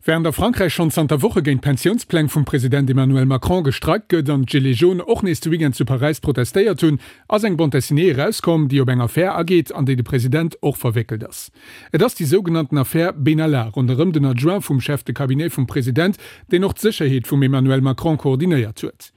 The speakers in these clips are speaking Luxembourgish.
Wärend a Frankräich schonn zanter Woche géint d'Pensiounspläng vum President Emmanuel Macron gestreikt gëtt an d'Gilets jaunes och nees de Weekend zu Paräis protestéiert hunn, ass eng Bande dessinée erauskomm, déi op eng Affär ageet, an déi de President och verwéckelt ass. Et ass déi sougenannten Affär Benalla ronderëm den Adjoint vum Chef de Cabinet vum President, deen och d'Sécherheet vum Emmanuel Macron koordinéiert huet.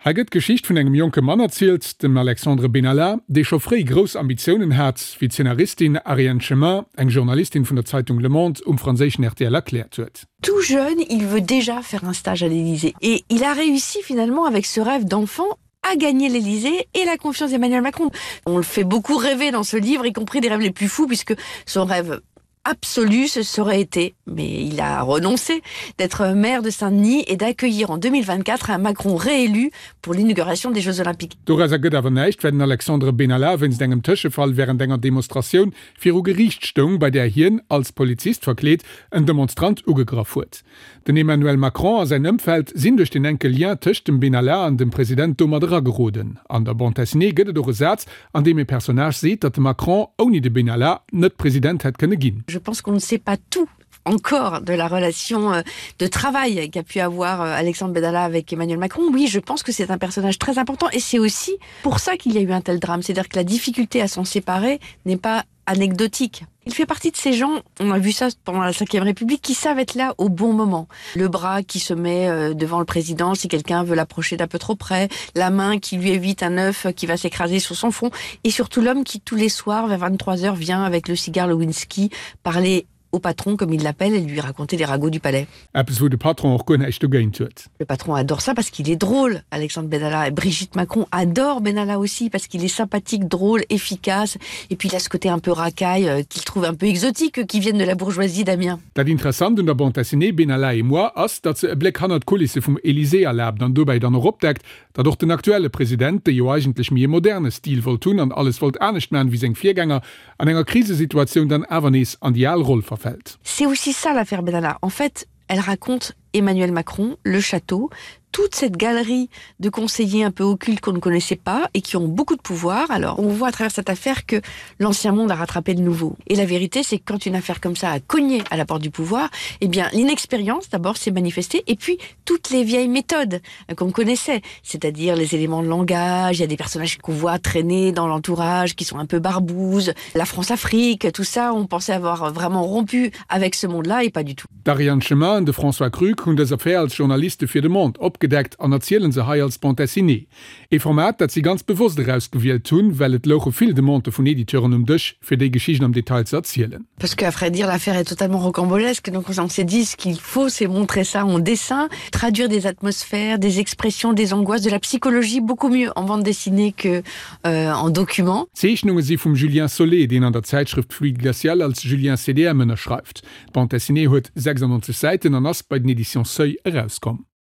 Hei gëtt d'Geschicht vun engem jonke Mann erzielt, dem Alexandre Benalla, dee scho fréi grouss Ambitiounen hat, wéi d'Szenaristin Ariane Chemin, eng Journalistin vun der Zeitung Le Monde, um franséischen rtl erkläert huet. Tout jeune, il veut déjà faire un stage à l'Élysée et il a réussi finalement avec ce rêve d'enfant à gagner l'Élysée et la confiance d'Emmanuel Macron. On le fait beaucoup rêver dans ce livre, y compris des rêves les plus fous puisque son rêve absolu ce serait été mais il a renoncé d'être maire de Saint-Denis et d'accueillir en 2024 un Macron réélu pour l'inauguration des Jeux olympiques. Dorauser gëtt awer näischt, well den Alexandre Benalla wéinst engem Tëschefall wärend enger Demonstratioun viru Geriicht stoung, bei där hien, als Polizist verkleet, en Demonstrant ugegraff huet. Den Emmanuel Macron a säin Ëmfeld sinn duerch den enke Lien tëscht dem Benalla an dem President domat erageroden. An der Bande dessinée gëtt et och e Saz, an deem e Personnage seet, datt de Macron ouni de Benalla net President hätt kënne ginn. Je pense qu'on ne sait pas tout encore de la relation euh, de travail qu'a pu avoir euh, Alexandre Benalla avec Emmanuel Macron. Oui, je pense que c'est un personnage très important et c'est aussi pour ça qu'il y a eu un tel drame. C'est-à-dire que la difficulté à s'en séparer n'est pas anecdotique. Il fait partie de ces gens, on a vu ça pendant la 5e République, qui savent être là au bon moment. Le bras qui se met euh, devant le président si quelqu'un veut l'approcher d'un peu trop près, la main qui lui évite un œuf qui va s'écraser sur son front, et surtout l'homme qui tous les soirs vers 23 heures vient avec le cigare Lewinsky parler au patron comme il l'appelle et lui raconter les ragots du palais. Eppes wou de Patron och guer näischt dogéint huet. Le patron adore ça parce qu'il est drôle, Alexandre Benalla et Brigitte Macron adore Benalla aussi parce qu'il est sympathique, drôle, efficace et puis il a ce côté un peu racaille euh, qu'il trouve un peu exotique qui vienne de la bourgeoisie d'Amiens. Dat Interessant un der Bande dessinée Benalla et moi ass, datt se e Bléck hannert d'Kulisse vum Elysée erlaabt an dobäi dann och opdeckt, datt och den aktuelle President, dee jo eigentlech méi e moderne Stil wollt hunn an alles wollt anescht man wéi seng Virgänger, an enger Krisesituatioun dann awer nees an déi al Roll verfält. C'est aussi ça l'affaire Benalla. En fait, elle raconte Emmanuel Macron, le château, toute cette galerie de conseillers un peu occultes qu'on ne connaissait pas et qui ont beaucoup de pouvoir. Alors on voit à travers cette affaire que l'ancien monde a rattrapé le nouveau. Et la vérité, c'est que quand une affaire comme ça a cogné à la porte du pouvoir, eh bien l'inexpérience d'abord s'est manifestée et puis toutes les vieilles méthodes qu'on connaissait, c'est-à-dire les éléments de langage, il y a des personnages qu'on voit traîner dans l'entourage, qui sont un peu barbouzes, la France-Afrique, tout ça, on pensait avoir vraiment rompu avec ce monde-là et pas du tout. D'Ariane Chemin an de François Krüg hunn dës Affär als Journaliste fir de Monde opgedeckt an erziele se hei als Bande dessinée. Ee Format, dat si ganz bewosst erausgewielt hunn, well et louche vill Demandë vun Editeuren um Dësch, fir déi Geschicht am Detail ze erzielen. Parce qu'à vrai dire, l'affaire est totalement rocambolesque, donc on s'est dit ce qu'il faut, c'est montrer ça en dessin, traduire des atmosphères, des expressions, des angoisses, de la psychologie beaucoup mieux en bande dessinée que euh, en document. D'Zeechnunge si vum Julien Solé, deen an der Zäitschrëft Fluide Glacial als Julien CDM ënnerschreift. D'Bande dessinée huet 96 Säiten an ass bei den Editions Seuil erauskomm.